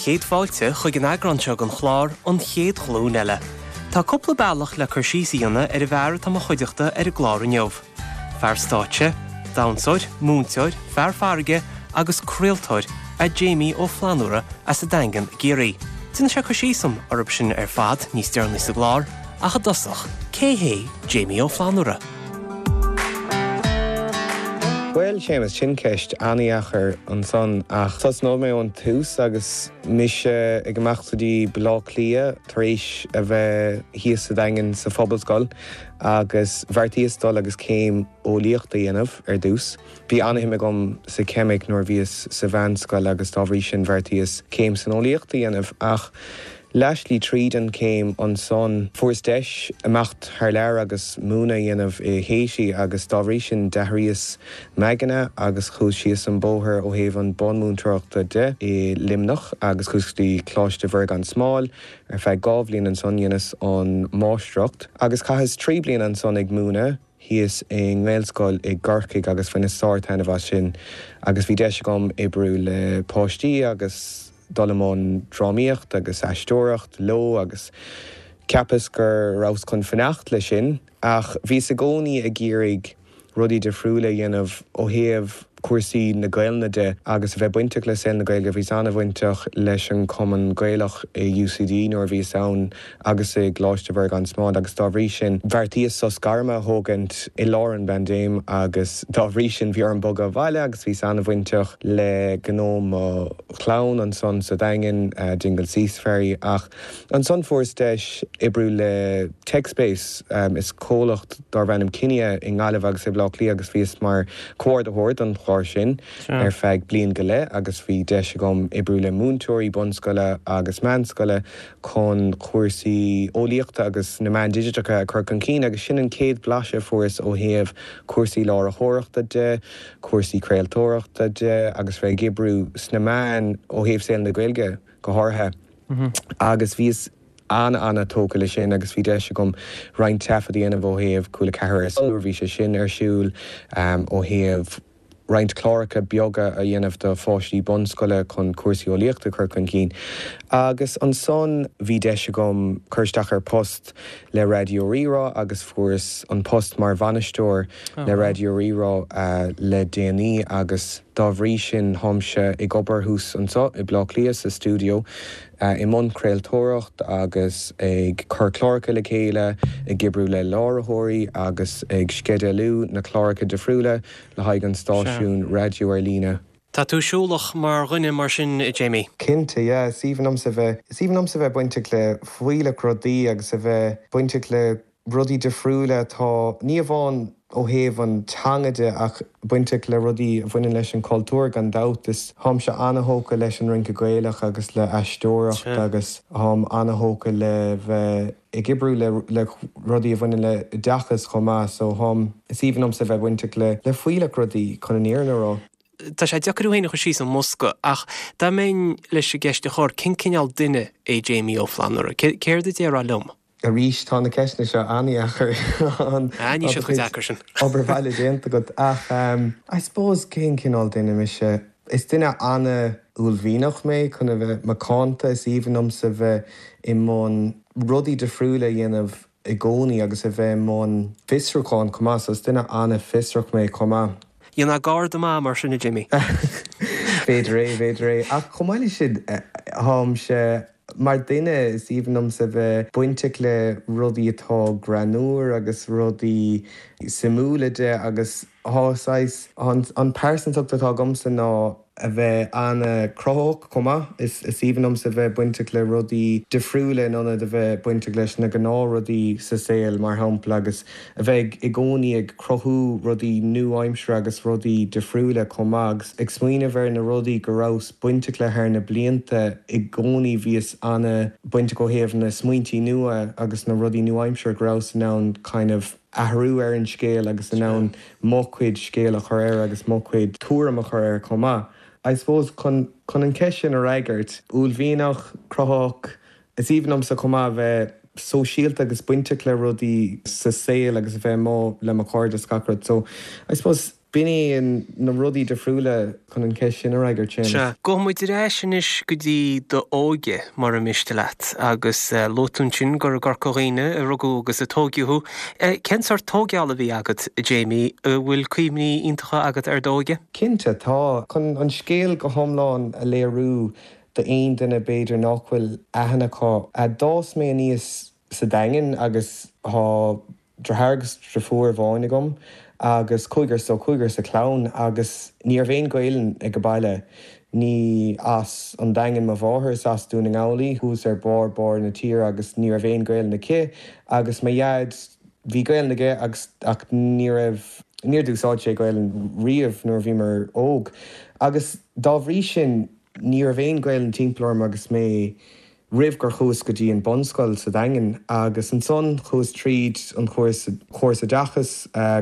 Sé chéad fáilte chuig an eagrán seo den chlár An Chéad Ghlúin Eile. Tá cúpla bealach le cur síos a dhéanamh ar an bhfear atá mo chuideachta ar an gclár inniu. Fear stáitse, damhsóir, múinteoir, fear farraige agus craoltóir é Jamie Ó Flannúra as an Daingean i gCiarraí. Déanfaidh sé cur síos dom orthu sin ar fad níos deireanaí sa gclár, ach i dtosach, cé hé Jamie Ó Flannúra? Bhuel, Séamus, sin ceist an-dheacair ansan, ach tosnóidh mé ón tús agus mise ag imeacht go dtí Baile Átha Cliath tar éis a bheith thíos sa Daingean sa Phobalscoil agus bheartaíos dul agus céim eolaíochta a dhéanamh ar dtús. Bhí an-shuim agam sa cheimic nuair a bhíos sa mheánscoil agus dá bhrí sin bheartaíos céim san eolaíocht a dhéanamh ach Leathshlí tríd an chéim ansan fuaireas deis imeacht thar lear agus múineadh a dhéanamh i Haiti agus dá bhrí sin d'athraíos m'aigne agus chuas síos an bóthar ó thaobh an bunmhúinteoireachta de i Luimneach agus chuas go dtí Coláiste Mhuire gan Smál ar feadh 2 bhliain ansan dheineas an máistreacht agus chaitheas 3 bliana ansan ag múineadh thíos i nGaelscoil i gCorcaigh agus bhaineas sár-taitneamh as sin agus bhí deis agam oibriú le páistí agus dul i mbun drámaíocht agus aisteoireacht leo agus cheapas go rabhas chun fanacht leis sin ach bhíos i gcónaí ag iarraidh rudaí difriúla a dhéanamh ó thaobh cúrsaí na Gaelainne de agus a bheith bainteach le saol na Gaeilge. Bhíos an-bhainteach leis an Chumann Gaelach i UCD nuair a bhíos ann agus i gColáiste Mhuire gan Smál agus dá bhrí sin bheartaíos sos gairme a thógaint i lár an bpaindéim agus dá bhrí sin bhí orm bogadh abhaile agus bhíos an-bhainteach le gnó mo chlann ansan sa Daingean, Dingle Sea Safari ach ansan fuaireas deis oibriú le TechSpace, is comhlacht darbh ainm Kinia i nGaillimh agus i mBleá Cliath agus bhíos mar chomhordaitheoir don chlár sin ar feadh bliain go leith agus bhí deis agam oibriú le múinteoirí bunscoile agus meánscoile chun cúrsaí eolaíochta agus na meáin digiteacha a chur chun cinn agus sin an chéad bhlaiseadh a fuaireas ó thaobh cúrsaí láithreoireachta de, cúrsaí craoltóireachta de agus bheith ag oibriú sna meáin ó thaobh saol na Gaeilge go háirithe agus bhíos an-an-tógtha leis sin agus bhí deis agam roinnt taifead a dhéanamh ó thaobh Cúla 4 Ar Son nuair a bhí sé sin ar siúl, ó thaobh roinnt cláracha beaga a dhéanamh do pháistí bunscoile chun cúrsaí eolaíochta a chur chun cinn. Agus ansan bhí deis agam cur isteach ar post le Raidió Rí-Rá agus fuaireas an post mar bhainisteoir le Raidió Rí-Rá le déanaí agus dá bhrí sin táimse ag obair thuas anseo i Bleá Cliath sa stiúideo i mbun craoltóireacht agus ag cur cláracha le chéile, ag oibriú le láithreoirí agus ag sceidealú na cláracha difriúla le haghaidh an stáisiún raidió ar líne. Tá tú siúlach mar dhuine mar sin, a Jamie? Cinnte, yeah. Is aoibhinn liomsa bheith, is aoibhinn liomsa bheith bainteach le fuílleach rudaí agus a bheith bainteach le rudaí difriúla atá, ní amháin ó thaobh an teanga de ach bainteach le rudaí a bhaineann leis an chultúr gan dabht. Is táimse ana-thógtha leis an rince Gaelach agus le aisteoireacht agus táim ana-thógtha le bheith ag oibriú le le rudaí a bhaineann le oideachas chomh maith so táim, is aoibhinn liomsa bheith bainteach le le fuílleach rudaí chun an fhírinne a rá. Tá sé deacair thú féin a chur síos i mbosca ach dá mbeinn leis an gceist a chur, cén cineál duine é Jamie Ó Flannúra? Céard a déarfá liom? Arís, tá na ceisteanna seo an-dheacair. Ah, níl siad chomh deacair sin. Obair bhaile déanta agat. Ach, I suppose, cén cineál duine mise? Is duine an-uaillmhianach mé, chun a bheith macánta. Is aoibhinn liomsa bheith i mbun rudaí difriúla a dhéanamh i gcónaí agus a bheith i mbun fiosrúcháin chomh maith. So is duine an-fhiosrach mé chomh maith. Dhéanfá garda maith mar sin, a Jimmy. B'fhéidir é, b'fhéidir é. Ach chomh maith leis sin, táimse. Mar duine, is aoibhinn liomsa bheith bainteach le rudaí atá greannmhar agus rudaí suimiúla de agus tá saghas, an pearsantacht atá agamsa ná a bheith an-chruthaitheach chomh maith. Is aoibhinn liomsa bheith bainteach le rudaí difriúla in ionad a bheith bainteach leis na gnáthrudaí sa saol, mar shampla, agus a bheith i gcónaí ag cruthú rudaí nua-aimseartha agus rudaí difriúla chomh maith agus ag smaoineamh ar na rudaí go rabhas bainteach le thar na blianta i gcónaí bhíos ana-bhainteach ó thaobh na smaointí nua agus na rudaí nua-aimseartha go rabhas in ann kind of athrú ar an scéal agus in ann mo chuid scéal a chur air agus mo chuid tuairim a chur air chomh maith. I suppose chun chun an cheist sin a fhreagairt, uaillmhianach, cruthaitheach, Is aoibhinn liomsa chomh maith a bheith sóisialta agus bainteach le rudaí sa saol agus a bheith amuigh le mo chairde is gach rud. So, I suppose. B'in é na rudaí difriúla chun an cheist sin a fhreagairt, Séamus. Sea. Gabhfaidh muid ar ais anois go dtí d'óige, mura miste leat. Agus luaigh tú ansin gur i gCorca Dhuibhne a rugadh agus a tóigeadh thú. Cén sórt tóigeála a bhí agat, a Jamie? An bhfuil cuimhní iontacha agat ar d'óige? Cinnte, tá. Chun an scéal go hiomlán a léiriú d'aon duine b'fhéidir nach bhfuil aithne acu, d'fhás mé aníos sa Daingean agus tá Deartháir agus deirfiúr amháin agam agus cúigear so cúigear sa chlann agus ní raibh aon Ghaelainn ag an baile. Ní as an Daingean mo mháthair, is as Dún na nGall í, thuas ar barr barr na tíre agus ní raibh aon Ghaelainn aici agus mo dhaid, bhí Gaelainn aige agus ach ní raibh, níor d'úsáid sé Gaelainn riamh nuair a bhíomar óg agus dá bhrí sin ní raibh aon Ghaelainn timpeall orm agus mé roimh gur chuas go dtí an bunscoil sa Daingean agus ansan chuas tríd an chóras córas oideachais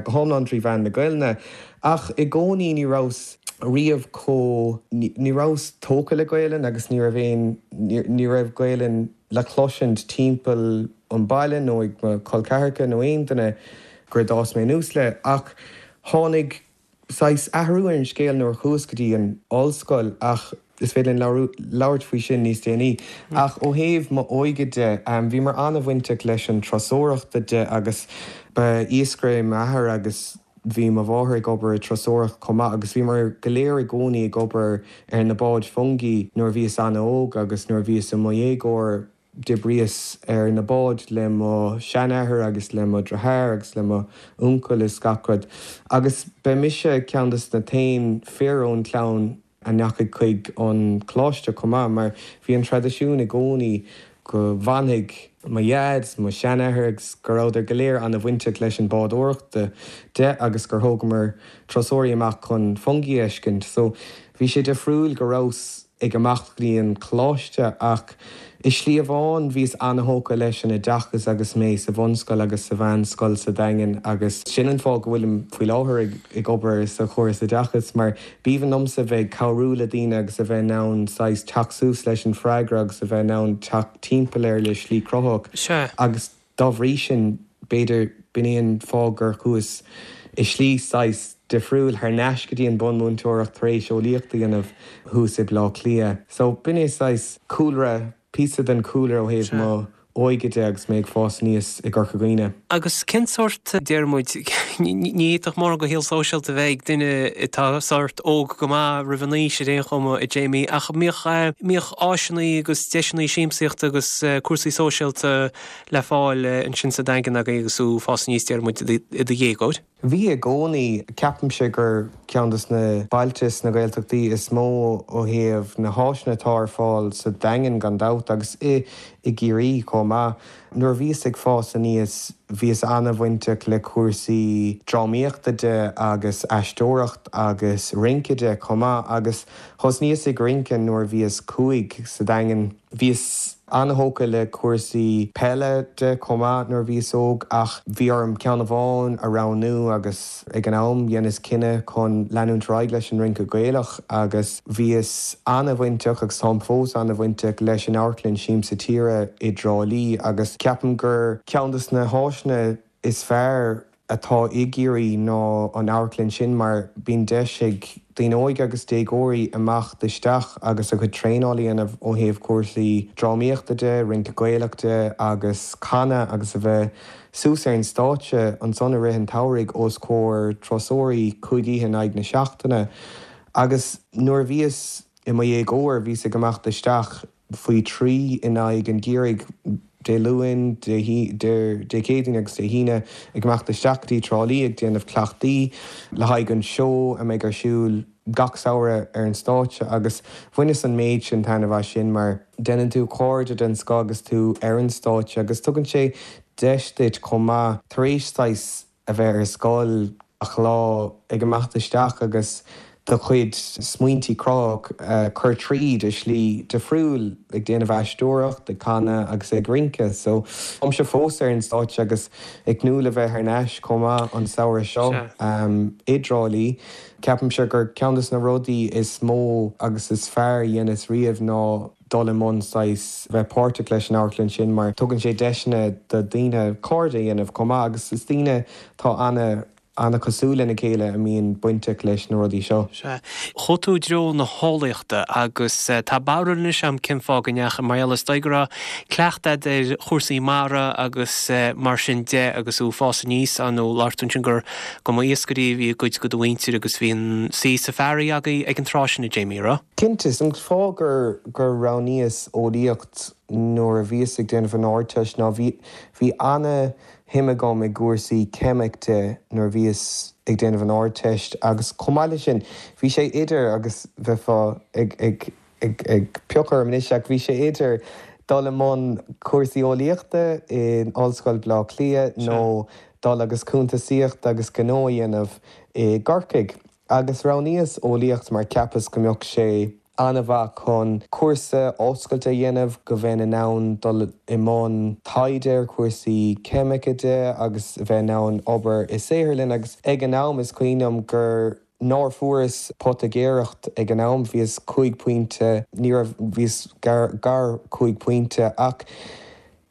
go hiomlán trí mheán na Gaelainne ach i gcónaí ní rabhas riamh chomh ní rabhas tógtha le Gaelainn agus ní raibh aon ní raibh Gaelainn le cloisint timpeall an baile nó ag mo chol ceathracha nó aon duine gur d'fhás mé anuas le ach tháinig saghas athrú ar an scéal nuair a chuas go dtí an ollscoil ach is féidir linn labhairt faoi sin níos déanaí. Ach ó thaobh m'óige de, bhíomar an-bhainteach leis an turasóireachta de agus ba iascaire é m'athair agus bhí mo mháthair ag obair i turasóireacht chomh maith agus bhíomar go léir i gcónaí ag obair ar na báid fiongaí nuair a bhíos an-óg agus nuair a bhíos i mo dhéagóir. D'oibríos ar na báid le mo sheanathair agus le mo dhriotháir agus le mo uncail is gach rud. Agus ba mise ceann des na t-aon fir ón chlann a ndeachaigh chuig an choláiste chomh maith mar bhí an traidisiún i gcónaí go bhfanfaidh mo dhaid is mo sheanathair agus go rabhadar go léir ana-bhainteach leis an bádóireacht de agus gur thógamar turasóirí amach chun fiongaí a fheiscint. So bhí sé difriúil go rabhas ag imeacht go dtí an coláiste ach i slí amháin bhíos ana-thógtha leis an oideachas agus mé sa bhunscoil agus sa mheánscoil sa Daingean agus sin an fáth go bhfuilim faoi láthair ag obair sa chóras oideachais mar b'aoibhinn liomsa bheith ag cabhrú le daoine agus a bheith in ann saghas teacht suas leis an freagra agus a bheith in ann teacht timpeall air le slí cruthaitheach agus Dá bhrí sin, b'fhéidir, b'in é an fáth gur chuas i slí saghas difriúil thar n-ais go dtí an bunmhúinteoireacht tar éis eolaíocht a dhéanamh thuas i Bleá Cliath. So, b'in é saghas cúlra, píosa den chúlra ó thaobh mo óige de agus mé ag fás aníos i gCorca Dhuibhne. Agus cén sórt, deir muid, ní fhéadfadh mórán de shaol sóisialta a bheith ag duine atá sórt óg go maith roimh an aois ar aon chuma, a Jamie, ach mbíodh, mbíodh áiseanna agus deiseanna siamsaíochta agus cúrsaí sóisialta le fáil ansin sa Daingean agaibh agus tú ag fás aníos, deir muid, i do dhéagóir? Bhí i gcónaí. Ceapaimse gur ceann de na bailte sna Gaeltachtaí is mó ó thaobh na háiseanna atá ar fáil sa Daingean gan dabht agus i i gCiarraí chomh maith. Nuair a bhíos ag fás aníos bhíos ana-bhainteach le cúrsaí drámaíochta de agus aisteoireacht agus rince de chomh maith agus thosnaíos ag rince nuair a bhíos 5 sa Daingean. Bhíos an-thógtha le cúrsaí peile de chomh maith nuair a bhíos óg ach bhí orm ceann amháin a roghnú agus ag an am dheineas cinneadh chun leanúint ar aghaidh leis an rince Gaelach agus bhíos an-bhainteach agus táim fós an-bhainteach leis an amharclann Siamsa Tíre i dTrá Lí agus ceapaim gur ceann de na háiseanna is fearr atá i gCiarraí ná an amharclann sin mar bíonn deis ag daoine óige agus déagóirí imeacht isteach agus a gcuid traenáil a dhéanamh ó thaobh cúrsaí drámaíochta de, rince Gaelach de agus canadh agus a bheith suas ar an stáitse ansan i rith an tsamhraidh os comhair turasóirí 5 oíche in aghaidh na seachtaine. Agus nuair a bhíos i mo dhéagóir bhíos ag imeacht isteach faoi thrí in aghaidh an gheimhridh, Dé Luain, Dé Céadaoin agus Dé hAoine, ag imeacht isteach go dtí Trá Lí ag déanamh cleachtaí le haghaidh an seó a mbeidh ar siúl gach samhradh ar an stáitse agus bhaineas an méid sin taitneamh as sin mar déanann tú cairde den scoth agus tú ar an stáitse agus tugann sé deis duit chomh maith tar éis saghas a bheith ar scoil gach lá ag imeacht isteach agus do chuid smaointí cruthaitheach a chur tríd i slí difriúil, ag déanamh aisteoireacht, ag canadh agus ag rince. So, táimse fós ar an stáitse agus ag tnúth le bheith thar n-ais chomh maith an samhradh seo i dTrá Lí. Ceapaimse gur ceann de na rudaí is mó agus is fearr a dheineas riamh ná dul i mbun saghas bheith páirteach leis an amharclann sin mar tugann sé deiseanna do daoine cairde a dhéanamh chomh maith agus is daoine atá ana. an-chosúil lena chéile a mbíonn bainteach leis na rudaí seo. Sea. Chuaigh tú i dtreo na heolaíochta agus tá barúil anois agam cén fáth go ndeachaigh, mar gheall is dóigh go raibh cleachtadh agat ar chúrsaí mara agus mar sin de agus tú ag fás aníos, ar ndóigh labhair tú ansin gur go mba iascairí a bhí i gcuid de do mhuintir agus bhí an saoi sa bhfarraige agaibh ag an tráth sin, a Jamie, raibh? Cinnte, is an fáth gur gur roghnaíos eolaíocht nuair a bhíos ag déanamh an Ardteist ná bhí bhí ana shuim agam i gcúrsaí ceimic de nuair a bhíos ag déanamh an Ardteist agus chomh maith leis sin bhí sé idir agus bheifeá ag ag ag ag piocadh orm anois ach bhí sé idir dul i mbun cúrsaí eolaíochta in Ollscoil Bhaile Átha Cliath nó dul agus cuntasaíocht agus gnó a dhéanamh i gCorcaigh. Agus roghnaíos eolaíocht mar cheapas go mbeadh sé an-mhaith chun cúrsa oscailte a dhéanamh, go bheinn in ann dul i mbun taighde ar chúrsaí ceimice de agus a bheith in ann obair i saotharlann agus ag an am is cuimhin liom gur nár fuaireas poitigéireacht ag an am, bhíos cúig pointe, ní raibh, bhíos gar, gar cúig pointe ach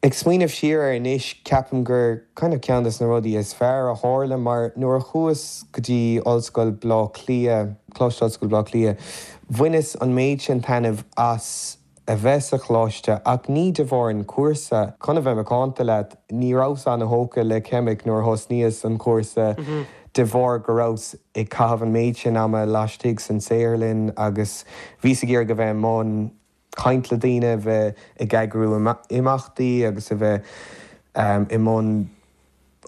ag smaoineamh siar air anois ceapaim gur kind of ceann des na rudaí is fearr a tharla mar nuair a chuas go dtí Ollscoil Bhaile Átha Cliath, Coláiste Ollscoile Bhaile Átha Cliath, bhaineas an méid sin taitneamh as a bheith sa choláiste ach ní de bharr an chúrsa. Chun a bheith macánta leat, ní rabhas ana-thógtha le ceimic nuair a thosnaíos an cúrsa de bharr go rabhas ag caitheamh an méid sin ama laistigh san saotharlann agus bhíos ag iarraidh a bheith i mbun caint le daoine, a bheith ag eagrú imeachtaí agus a bheith i mbun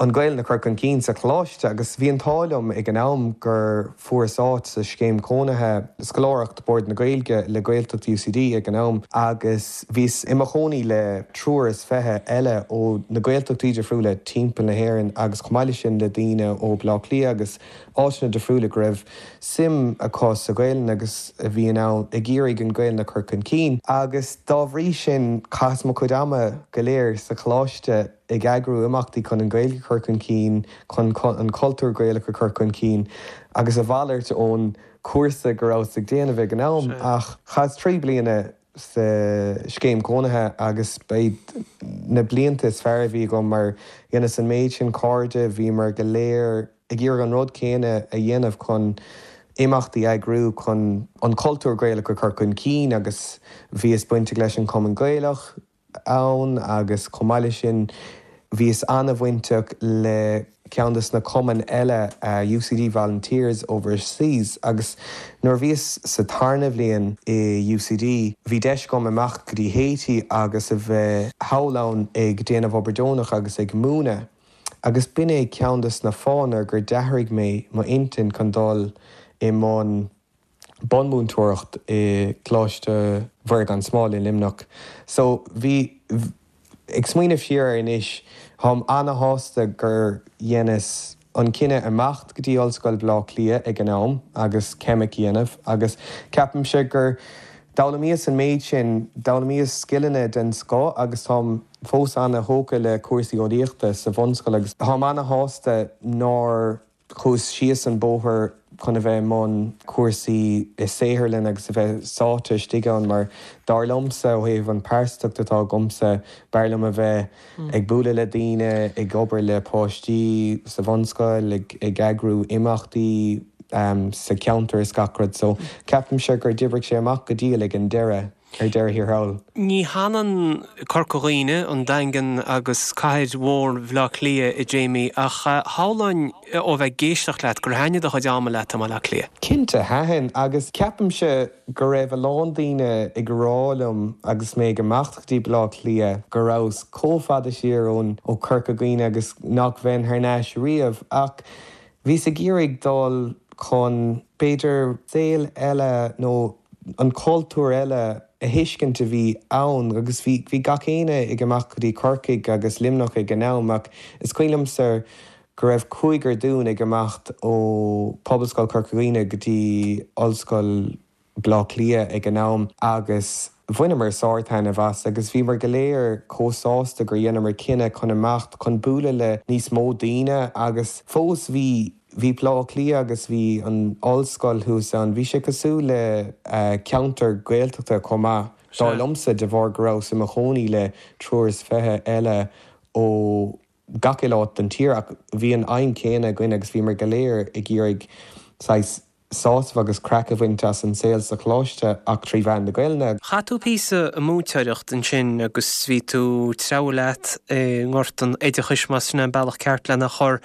an Ghaelainn a chur chun cinn sa choláiste agus bhí an t-ádh liom ag an am gur fuaireas áit sa scéim cónaithe, scoláireacht Bord na Gaeilge le Gaeltacht UCD ag an am agus bhíos i mo chónaí le triúr is fiche eile ó na Gaeltachtaí difriúla timpeall na hÉireann agus chomh maith leis sin le daoine ó Bhaile Átha Cliath agus áiteanna difriúla go raibh suim acu sa Ghaelainn agus a bhí in ann ag iarraidh an Ghaelainn a chur chun cinn agus dá bhrí sin chaitheas mo chuid ama go léir sa choláiste ag eagrú imeachtaí chun an Ghaeilge a chur chun cinn, chun an cultúr Gaelach a chur chun cinn agus a mhalairt ón chúrsa go rabhas ag déanamh ag an am ach chaitheas 3 bliana sa scéim cónaithe agus ba iad na blianta is fearr a bhí agam mar dheineas an méid sin cairde, bhíomar go léir ag iarraidh an rud céanna a dhéanamh chun imeachtaí a eagrú chun an cultúr Gaelach a chur chun cinn agus bhíos bainteach leis an Chumann Gaelach ann agus chomh maith leis sin bhíos an-bhainteach le ceann des na cumainn eile UCD Volunteers Overseas agus nuair a bhíos sa tarna bhliain i UCD bhí deis agam imeacht go dtí Haiti agus a bheith thall ann ag déanamh obair deonach agus ag múineadh. Agus b'in é ceann des na fáthanna gur d'athraigh mé m'intinn chun dul i mbun bunmhúinteoireacht i gColáiste Mhuire gan Smál i Luimneach. So bhí, ag smaoineamh siar air anois, táim ana-shásta gur dheineas an cinneadh imeacht go dtí Ollscoil Bhaile Átha Cliath ag an am agus ceimic a dhéanamh agus ceapaimse gur d'fhoghlaimíos an méid sin, d'fhoghlaimíos scileanna den scoth agus táim fós ana-thógtha le cúrsaí eolaíochta sa bhunscoil agus táim ana-shásta nár chuas síos an bóthar chun a bheith i mbun cúrsaí i saotharlann agus a bheith sáite istigh ann mar dar liomsa, ó thaobh an pearsantacht atá agamsa, b'fhearr liom a bheith ag bualadh le daoine, ag obair le páistí sa bhunscoil, ag eagrú imeachtaí sa cheantar is gach rud. So ceapaimse gur d'oibrigh sé amach go diail ag an deireadh. ar deireadh thiar thall. Ní hionann Corca Dhuibhne, an Daingean agus cathair mhór Bhaile Átha Cliath, a Jamie, ach shamhlóinn ó bheith ag éisteacht leat gur thaitnigh do chuid ama leat i mBaile Átha Cliath. Cinnte, thaitin, agus ceapaimse go raibh a lán daoine ag rá liom agus mé ag imeacht go dtí Baile Átha Cliath go rabhas chomh fada siar ón ó Chorca Dhuibhne agus nach bheinn thar n-ais riamh, ach bhíos ag iarraidh dul chun, b'fhéidir, saol eile nó an cultúr eile a thuiscint a bhí ann agus bhí bhí gach éinne ag imeacht go dtí Corcaigh agus Luimneach ag an am ach is cuimhin liomsa go raibh cúigear dúinn ag imeacht ó Pobalscoil Chorca Dhuibhne go dtí Ollscoil Bhaile Átha Cliath ag an am agus bhaineamar sár-taitneamh as agus bhíomar go léir chomh sásta gur dheineamar cinneadh chun imeacht chun bualadh le níos mó daoine agus fós bhí Bhí Baile Átha Cliath agus bhí an ollscoil thuas ann, bhí sé cosúil le ceantar Gaeltachta chomh maith, dar liomsa, de bharr go rabhas i mo chónaí le triúr is fiche eile ó gach uile áit den tír ach bhí an aidhm chéanna againn agus bhíomar go léir ag iarraidh saghas sásamh agus craic a bhaint as an saol sa choláiste ach trí mheán na Gaelainne. Chaith tú píosa ag múinteoireacht ansin agus bhí tú ag treabhadh leat i ngort an oideachais, más sin é an bealach ceart lena chur.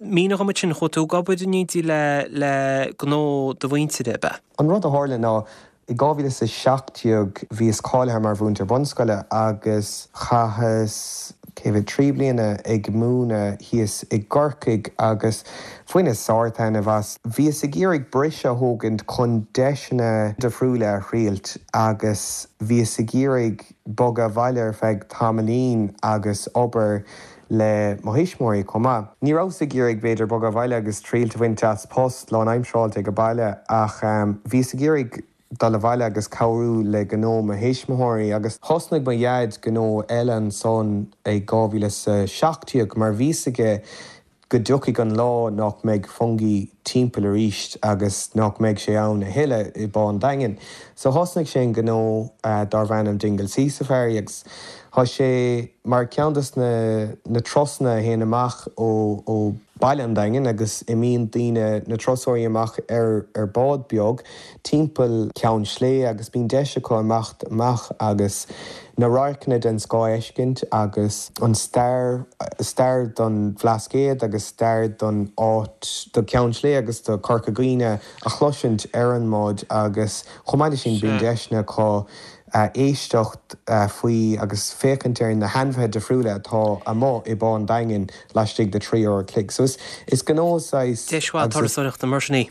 Mínigh dhom ansin, chuaigh tú ag obair in éindí le le gnó do mhuintire, ab ea? An rud a tharla ná I 2017 bhíos cáilithe mar mhúinteoir bunscoile agus chaitheas, cé mhéad, 3 bliana ag múineadh thíos i gCorcaigh agus bhaineas sár-taitneamh as. Bhíos ag iarraidh briseadh a thógaint chun deiseanna difriúla a thriailt agus bhíos ag iarraidh bogadh abhaile ar feadh tamaillín agus obair le mo thuismitheoirí chomh maith. Ní rabhas ag iarraidh, b'fhéidir, bogadh abhaile agus triailt a bhaint as post lánaimseartha ag baile ach bhíos ag iarraidh dul abhaile agus cabhrú le gnó mo thuismitheoirí agus thosnaigh mo dhaid gnó eile ansan i 2017 mar bhí 'fhios aige go dtiocfaidh an lá nach mbeidh Fungie timpeall arís agus nach mbeidh sé ann a thuilleadh i bPá an Daingin. So thosnaigh sé an gnó darbh ainm Dingle Sea Safari agus thá sé mar ceann dos na na turasanna a théann amach ó ó baile an Daingin agus imíonn daoine, na turasóirí amach ar ar bád beag timpeall Ceann Sléibhe agus bíonn deis acu imeacht amach agus na radharcanna den scoth a fheiscint agus an stair, stair don Bhlascaod agus stair don áit, do Cheann Sléibhe agus do Chorca Dhuibhne a chloisint ar an mbád agus chomh maith leis sin bíonn deiseanna acu éisteacht faoi agus féachaint ar na hainmhithe difriúla atá amuigh i bPá an Daingin laistigh de 3 uair a chloig. So is gnó saghas Deis mhaith turasóireachta mar sin í.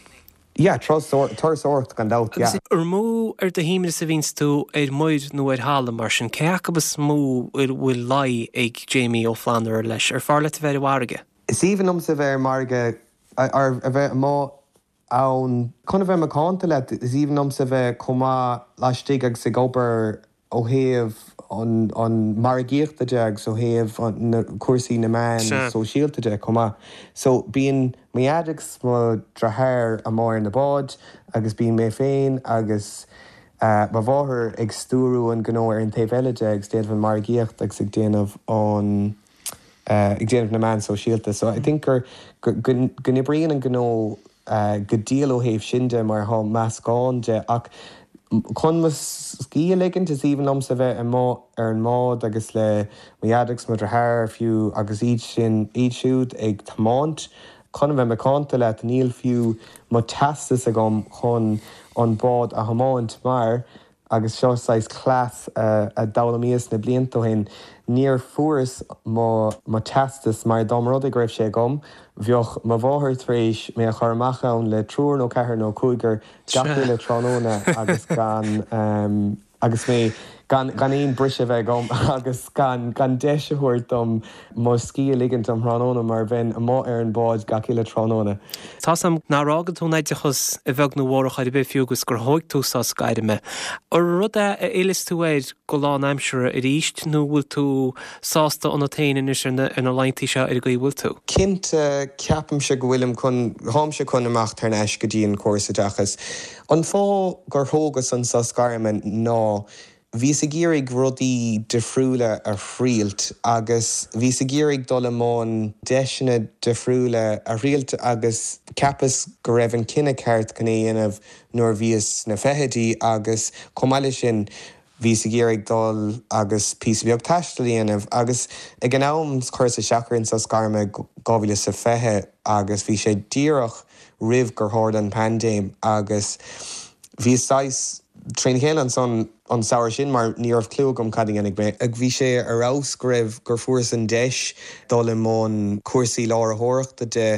Yeah, turasóireacht gan dabht, yeah. Agus ar mó ar do shuaimhneas a bhíonns tú ar muir nó ar thalamh mar sin, cé acu is mó a bhfuil luí ag Jamie Ó Flannúra leis? Ar fearr leat a bheith ar an bhfarraige? Is aoibhinn liomsa a bheith ar an bhfarraige, a bheith amuigh ann. Chun a bheith macánta leat, is aoibhinn liomsa a bheith chomh maith laistigh agus ag obair ó thaobh an margaíochta de agus ó thaobh na cúrsaí na meán sóisialta de chomh maith. So bíonn mo dhaid agus mo dheartháir amuigh ar na báid agus bíonn mé féin agus mo mháthair ag stiúrú an gnó ar an taobh eile de agus déanamh an margaíocht agus ag déanamh an ag déanamh na meán sóisialta. So I think gur go n-oibríonn an gnó go diail ó thaobh sin de mar thá meascán de ach chun mo scíth a ligint is aoibhinn liomsa bheith amuigh ar an mbád agus le mo dhaid agus mo dheartháir fiú agus iad sin iad siúd ag tiomáint. Chun a bheith macánta leat níl fiú mo teastas agam chun an bád a thiomáint mar Agus seo saghas cleas a d'fhoghlaimíos na blianta ó shin, níor fuaireas mo mo teastas mar dá mba rud é go raibh sé agam, bheadh mo mháthair tar éis mé a chur amach ann le triúr nó ceathrar nó cúigear gach uile tráthnóna agus gan agus mé gan gan aon briseadh a bheith agam agus gan gan deis a thabhairt dom mo scíth a ligint um thráthnóna mar bheinn amuigh ar an bhád gach uile tráthnóna. Tá's a'm nár fhága tú an oideachas a bheag nó a mhór ar chor ar bith fiú agus gur thóig tú sos gairme. An rud é a fhillfeas tú air go lánaimseartha arís nó bhfuil tú sásta ionat féin anois ar na ar na laethanta seo ar an gcaoi a bhfuil tú? Cinnte, ceapaimse go bhfuilim chun, tháimse chun imeacht thar n-ais go dtí an córas oideachais. An fáth gur thógas an sos gairme ná Bhíos ag iarraidh rudaí difriúla a thriailt agus bhíos ag iarraidh dul i mbun deiseanna difriúla a thriailt agus cheapas go raibh an cinneadh ceart chun é a dhéanamh nuair a bhíos sna fichidí agus chomh maith leis sin bhíos ag iarraidh dul agus píosa beag taistil a dhéanamh agus ag an am chuireas isteach ar an sos gairme 2020 agus bhí sé díreach roimh gur tharla an paindéim agus bhíos saghas trína chéile ansan an samhradh sin mar ní raibh clue agam cad a dhéanfaidh mé. Bhí sé ar fheabhas go raibh, gur fuaireas an deis dul i mbun cúrsaí láithreoireachta de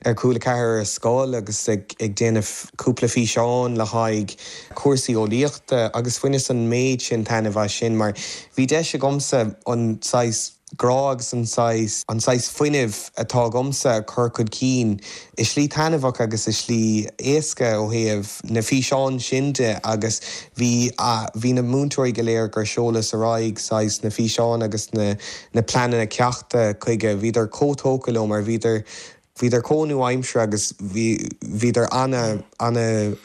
ar Cúla 4 ar scoil agus ag déanamh cúpla físeán le haghaidh cúrsaí eolaíochta agus bhaineas an méid sin taitneamh as sin mar bhí deis agamsa an saghas grá agus an saghas, an saghas fuinnimh atá agamsa a chur chun cinn i slí taitneamhach agus i slí éasca ó thaobh na físeáin sin de agus bhí, bhí na múinteoirí go léir gur sheolas ar aghaidh saghas na físeáin agus na, na pleananna ceachta chuige, bhíodar chomh tógtha leo mar bhíodar. Bhíodar chomh nua-aimseartha agus bhí, bhíodar ana, ana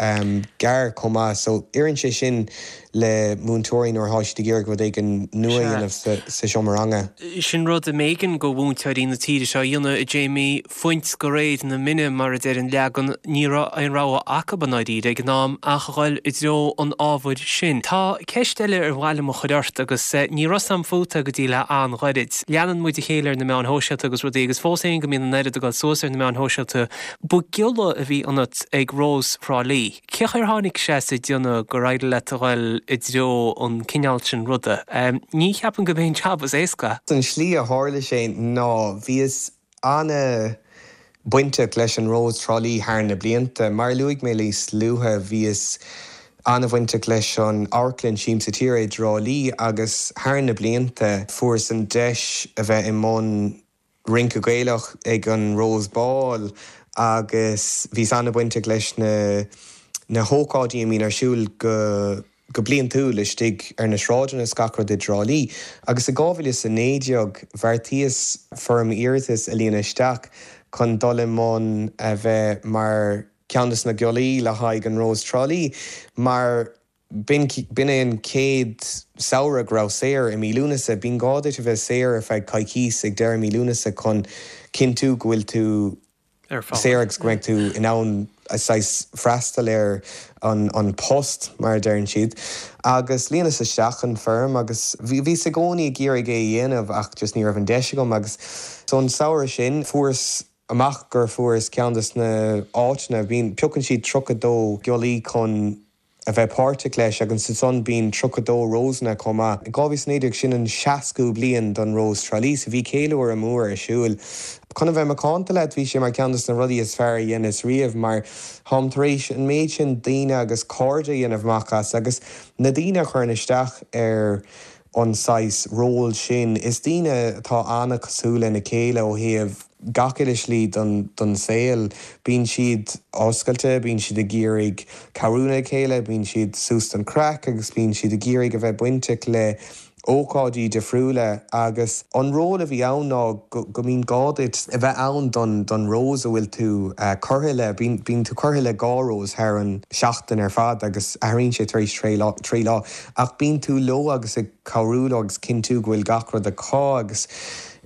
gearr chomh maith so oireann sé sin le múinteoirí nuair atá siad ag iarraidh rud éigin nua a dhéanamh sa, sa seomra ranga. Sin rud a mb'éigean go mhúinteoirí na tíre seo a dhéanamh, a Jamie, fuint go réir na mine mar a deir an leagan, ní raibh aon rogha acu i ndáiríre ag an am ach a dhul i dtreo an ábhair sin. Tá ceist eile ar mhaith liom a chur ort agus ní raibh 's a'm fút go dtí le an-ghairid. Leanann muid a chéile ar na meáin shóisialta agus rudaí agus fós féin go mbíonn an oiread ag dul suas ar na meáin shóisialta, ba ghiolla a bhí ionat ag Rós Thrá Lí. Cé chaoi ar tháinig sé sa déanamh gur éirigh leat a dhul i dtreo an cineál sin ruda? Ní cheapaim go b'é an jab is éasca. An slí a tharla sé ná bhíos ana bainteach leis an Rós Trá Lí thar na blianta. Mar a luaigh mé níos luaithe, bhíos ana-bhainteach leis an amharclann Siamsa Tíre i dTrá Lí agus thar na blianta fuaireas an deis a bheith i mbun rince Gaelach ag an Rose Ball agus bhíos ana-bhainteach leis na na hócáidí a mbíonn ar siúl go go bliantúil istigh ar na sráideanna is gach rud i dTrá Lí. Agus i 2019 bheartaíos foirm iarratais a líonadh isteach chun dul i mbun a bheith mar cheann des na giollaí le haghaidh an Rós Trá Lí mar b'in b'in é an chéad samhradh go raibh saor i mí Lúnasa. Bíonn gá duit a bheith saor ar feadh coicís ag deireadh mí Lúnasa chun cinntiú go bhfuil tú saor agus go mbeidh tú in ann saghas freastal ar an post, mar a deireann siad. Agus líonas isteach an foirm agus bhíos i gcónaí ag iarraidh é a dhéanamh ach just ní raibh an deis agam agus so an samhradh sin fuaireas amach gur fuaireas ceann des na áiteanna, bíonn, piocann siad 32 giollaí chun a bheith páirteach leis agus ansan bíonn 32 Rósanna chomh maith. I 2019 sin an seascú bliain don Rós Trá Lí so bhí céiliúradh mór ar siúl. Chun a bheith macánta leat bhí sé mar ceann des na rudaí is fearr a dheineas riamh mar táim tar éis an méid sin daoine agus cairde a dhéanamh amach as agus na daoine a chuireann isteach ar an saghas ról sin is daoine atá an-cosúil lena chéile ó thaobh gach uile shlí don saol. Bíonn siad oscailte, bíonn siad ag iarraidh cabhrú lena chéile, bíonn siad suas don chraic agus bíonn siad ag iarraidh a bheith bainteach le ócáidí difriúla agus an ról a bhí ann ná go mbíonn gá duit a bheith ann don Rose a bhfuil tú curtha le. Bíonn tú curtha le dhá Rose thar an seachtain ar fad agus athraíonn sé tar éis trí lá ach bíonn tú leo agus ag cabhrú leo agus cinntiú go bhfuil gach rud acu agus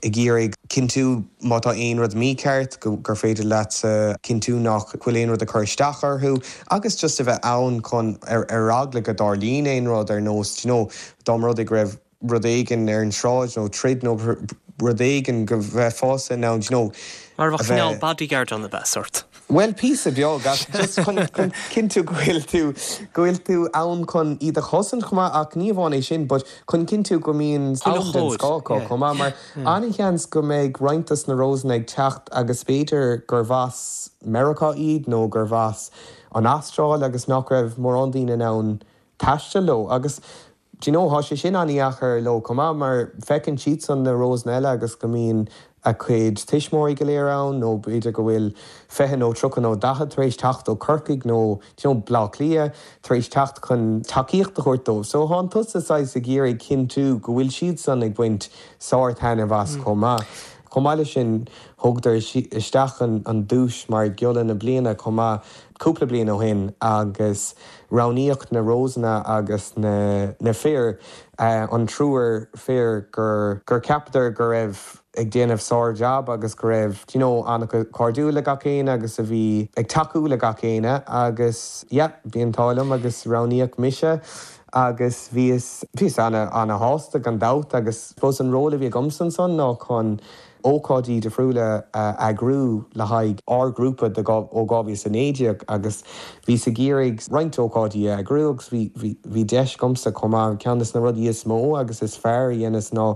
ag iarraidh cinntiú má tá aon rud mícheart gur féidir leatsa cinntiú nach bhfuil aon rud ag cur isteach orthu agus just a bheith ann chun ar eagla go dtarlaíonn aon rud ar nós do you know dá mba rud é go raibh rud éigin ar an sráid nó troid nó rud éigin go mbeifeása in ann do you know Mar a bheadh cineál bodyguard ann ab ea, sort? Bhuel, píosa beag, ach just chun cinntiú go bhfuil tú, go bhfuil tú ann chun iad a chosaint chomh maith, ach ní amháin é sin, but chun cinntiú go mbíonn am den scoth acu chomh maith, mar an-sheans go mbeidh roinnt dos na Rósanna ag teacht agus b'fhéidir gurbh as Meiriceá iad nó gurbh as an Astráil agus nach raibh mórán daoine in ann taisteal leo agus Do you know, tá sé sin an-dheacair leo chomh maith mar feiceann siadsan na Rósanna eile agus go mbíonn a gcuid tuismitheoirí go léir ann nó b'fhéidir go bhfuil 20 nó 30 nó 40 tar éis teacht ó Corcaigh nó do you know, Bleá Cliath tar éis teacht chun tacaíocht a thabhairt dóibh. So tánn tusa saghas ag iarraidh cinntiú go bhfuil siadsan ag baint sár-taitneamh as chomh maith. Chomh maith leis sin, thugadar isteach an duais mar Ghiolla na Bliana chomh maith cúpla bliain ó shin agus Roghnaíodh na Rósanna agus na na fir, an triúr fir gur gur cheapadar go raibh ag déanamh sár-jab agus go raibh do you know an-chairdiúil le gach éinne agus a bhí ag tacú le gach éinne agus yeah bhí an t-ádh liom agus roghnaíodh mise agus bhíos bhíos ana ana-shásta gan dabht agus suppose an ról a bhí agamsa ansan ná chun ócáidí difriúla a eagrú le haghaidh ár ngrúpa de ó 2019 agus bhíos ag iarraidh roinnt ócáidí a eagrú agus bhí bhí bhí deis agamsa chomh maith. Ceann des na rudaí is mó agus is fearr a dheineas ná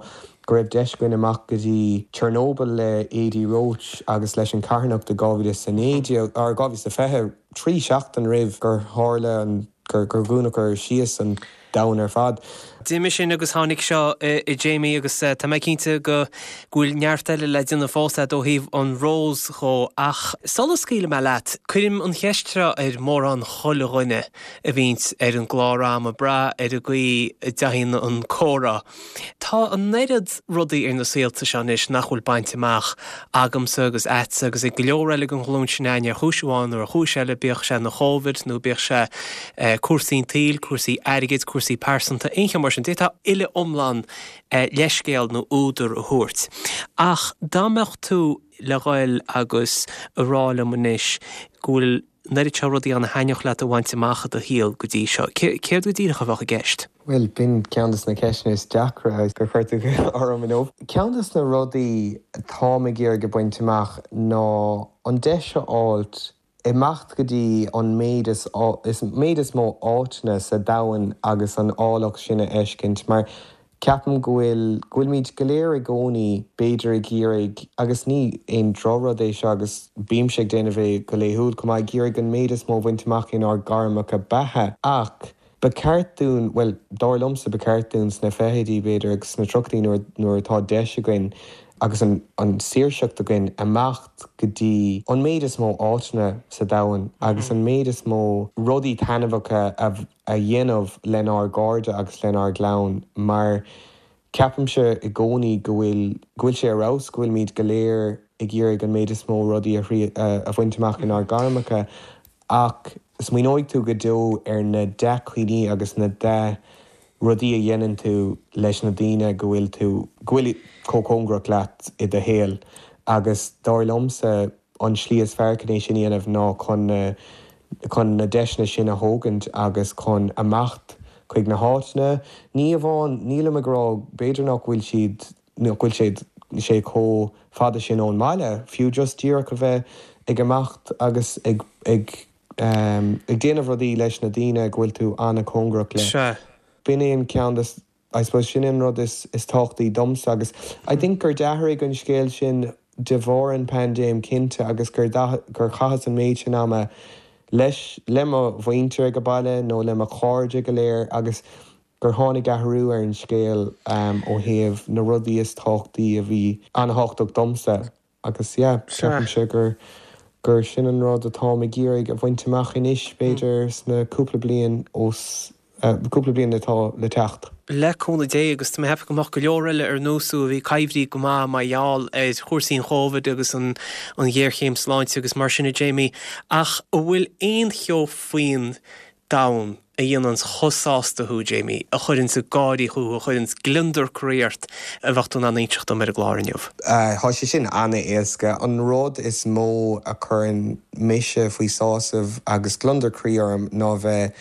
go raibh deis againn amach go dtí Chernobyl le Adi Roche agus leis an charthanacht i 2019 or 2020, trí seachtain roimh gur tharla an gur gur dhúnadar síos an. domhan ar fad. D'imigh sin agus tháinig seo a Jamie agus tá mé cinnte go bhfuil neart eile le déanamh fós agat ó thaobh an Rose dhó ach sula scaoilfidh mé leat, cuirim an cheist seo ar mórán chuile dhuine a bhíonns ar an gclár a'm ag brath ar an gcaoi a dtéann an comhrá. Tá an oiread rudaí ar na saolta seo anois nach bhfuil bainte amach agamsa agus a'dsa agus ag go leor eile den ghlúin sin a'ainn ar chúis amháin nó ar chúis eile, bíodh sé an Chóivid nó bíodh sé cúrsaí an tsaoil, cúrsaí airgid, cúrsaí pearsanta, aon cheo mar sin. D'fhéadfá uile iomlán leithscéal nó údar a thabhairt. Ach dá mbeadh tú le ghoil agus a rá liom anois go bhfuil an oiread seo rudaí ann a thaitneodh leat a bhaint amach i do shaol go dtí seo, céard go díreach a bheadh i gceist? Bhuel, b'in ceann de na ceisteanna is deacra gur chuir tú orm inniu. Ceann de na rudaí atáim ag iarraidh a bhaint amach ná an deis a fháilt imeacht go dtí an méid is méid is mó áiteanna sa domhan agus an áilleacht sin a fheiscint mar Ceapaim go bhfuil, go bhfuilimid go léir i gcónaí b'fhéidir ag iarraidh, agus ní aon drochrud é seo agus bímse ag déanamh é go laethúil chomh maith, ag iarraidh an méid is mó a bhaint amach inár gairmeacha beatha ach ba cheart dúinn, bhuel, dar liomsa ba cheart dúinn sna fichidí b'fhéidir agus sna tríochaidí nuair, nuair atá deis againn agus an, an saoirseacht againn imeacht go dtí an méid is mó áiteanna sa domhan agus an méid is mó rudaí taitneamhacha a a dhéanamh lenár gcairde agus lenár gclann mar ceapaimse i gcónaí go bhfuil, go bhfuil sé ar fheabhas go bhfuilimid go léir ag iarraidh an méid is mó rudaí a, a bhaint amach inár gairmeacha ach smaoineoidh tú go deo ar na dea-chuimhní agus na dea-rudaí a dhéanann tú leis na daoine go bhfuil tú, go bhfuil chomh cóngarach leat i do shaol agus dar liomsa an tslí is fearr chun é sin a dhéanamh ná chun na chun na deiseanna sin a thógaint agus chun imeacht chuig na háiteanna. Ní amháin, nílim ag rá, b'fhéidir nach bhfuil siad, nach bhfuil siad, sé chomh fada sin ón mbaile, fiú just díreach a bheith ag imeacht agus ag, ag, ag déanamh rudaí leis na daoine go bhfuil tú an-chóngarach le. Sea. B'in é an ceann de, I suppose sin an rud is tábhachtaí domsa agus I think gur d'athraigh an scéal sin de bharr an paindéim cinnte agus gur gur chaitheas an méid sin ama leis le mo mhuintir ag baile nó le mo chairde go léir agus gur tháinig athrú ar an scéal ó thaobh na rudaí is tábhachtaí a bhí an-thábhachtach domsa. Agus yeah, ceapaimse gur gur sin an rud atáim ag iarraidh a bhaint amach anois, b'fhéidir sna cúpla bliain os, cúpla bliain atá le teacht. Le cúnamh Dé, agus tá mé ag ceapadh go mbeadh go leor eile ar nós thú a bhí coimhthíoch go maith mar gheall ar chúrsaí an Chóivid agus an an ghéarchéim sláinte agus mar sin a Jamie, ach an bhfuil aon cheo faoin domhan a dhéananns chomh sásta thú, Jamie, a chuireanns ag gáirí thú, a chuireanns gliondar croí ort, a bheadh tú in ann inseacht dom ar an gclár inniu? Tá sé sin an-éasca. An rud is mó a chuireann mise faoi sásamh agus gliondar croí orm ná bheith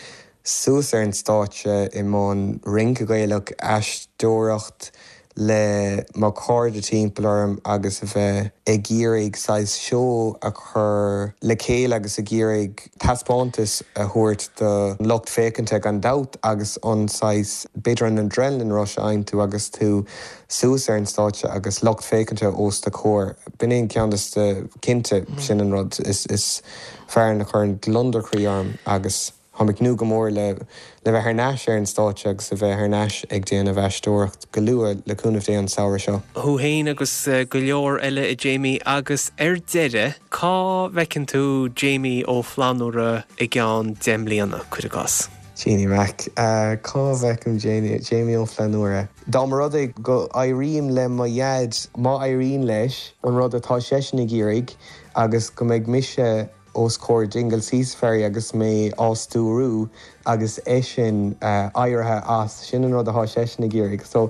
suas ar an stáitse i mbun rince Gaelach, aisteoireacht le mo chairde timpeall orm agus a bheith ag iarraidh saghas seó a chur le chéile agus ag iarraidh taispeántas a thabhairt do lucht féachanta gan dabht agus an saghas, b'fhéidir an adrenaline rush a fhaigheann tú agus tú suas ar an stáitse agus lucht féachanta os do chomhair. B'in é an ceann des na, cinnte, sin an rud is fearr a chuireann gliondar croí orm agus. Táim ag tnúth go mór le le bheith thar n-ais ar an stáitse agus a bheith thar n-ais ag déanamh aisteoireacht go luath, le cúnamh Dé, an samhradh seo. Thú féin agus go leor eile, a Jamie. Agus ar deireadh, cá bhfeiceann tú Jamie Ó Flannúra i gceann 10 mbliana, cuir i gcás? Jeannie Mac, Cá bhfeicim Jamie Ó Flannúra? Dá mba rud é go éirím le mo dhaid, má éiríonn leis an rud atá seisean ag iarraidh agus go mbeidh mise os comhair Dingle Sea Safari agus mé á stiúrú agus eisean éirithe as. Sin an rud atá seisean ag iarraidh. So,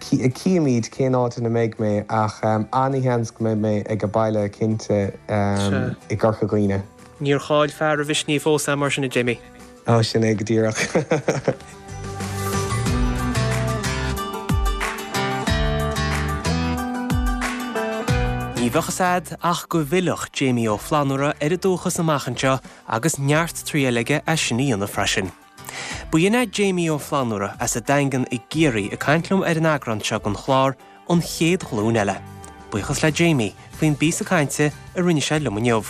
cífimid cén áit ina mbeidh mé ach an-sheans go mbeidh mé ag baile cinnte i gCorca Dhuibhne. Níor chaill fear a mhisnigh fós é mar sin, a Jamie. Á, sin é go díreach. Ní bheadh fhios a'd ach go bhfillfeadh Jamie Ó Flannúra ar a dúchas amach anseo agus neart triail aige é sin a dhéanamh freisin. B'in é Jamie Ó Flannúra as an Daingean i gCiarraí ag caint liom ar an eagrán seo den chlár An Chéad Ghlúin Eile. Buíochas le Jamie faoin bpíosa cainte a rinne sé liom inniu.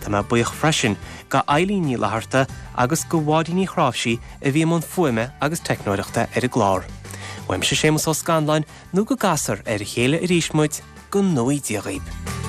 Tá mé buíoch freisin go Eilín Ní Fhlatharta agus go Mháirín Ní Chráimhsí a bhí i mbun fuaime agus teicneoireachta ar an gclár. Uaimse Séamus Ó Scanláin nó go gcasfar ar a chéile arís muid, go ngnóthaí Dia dhaoib.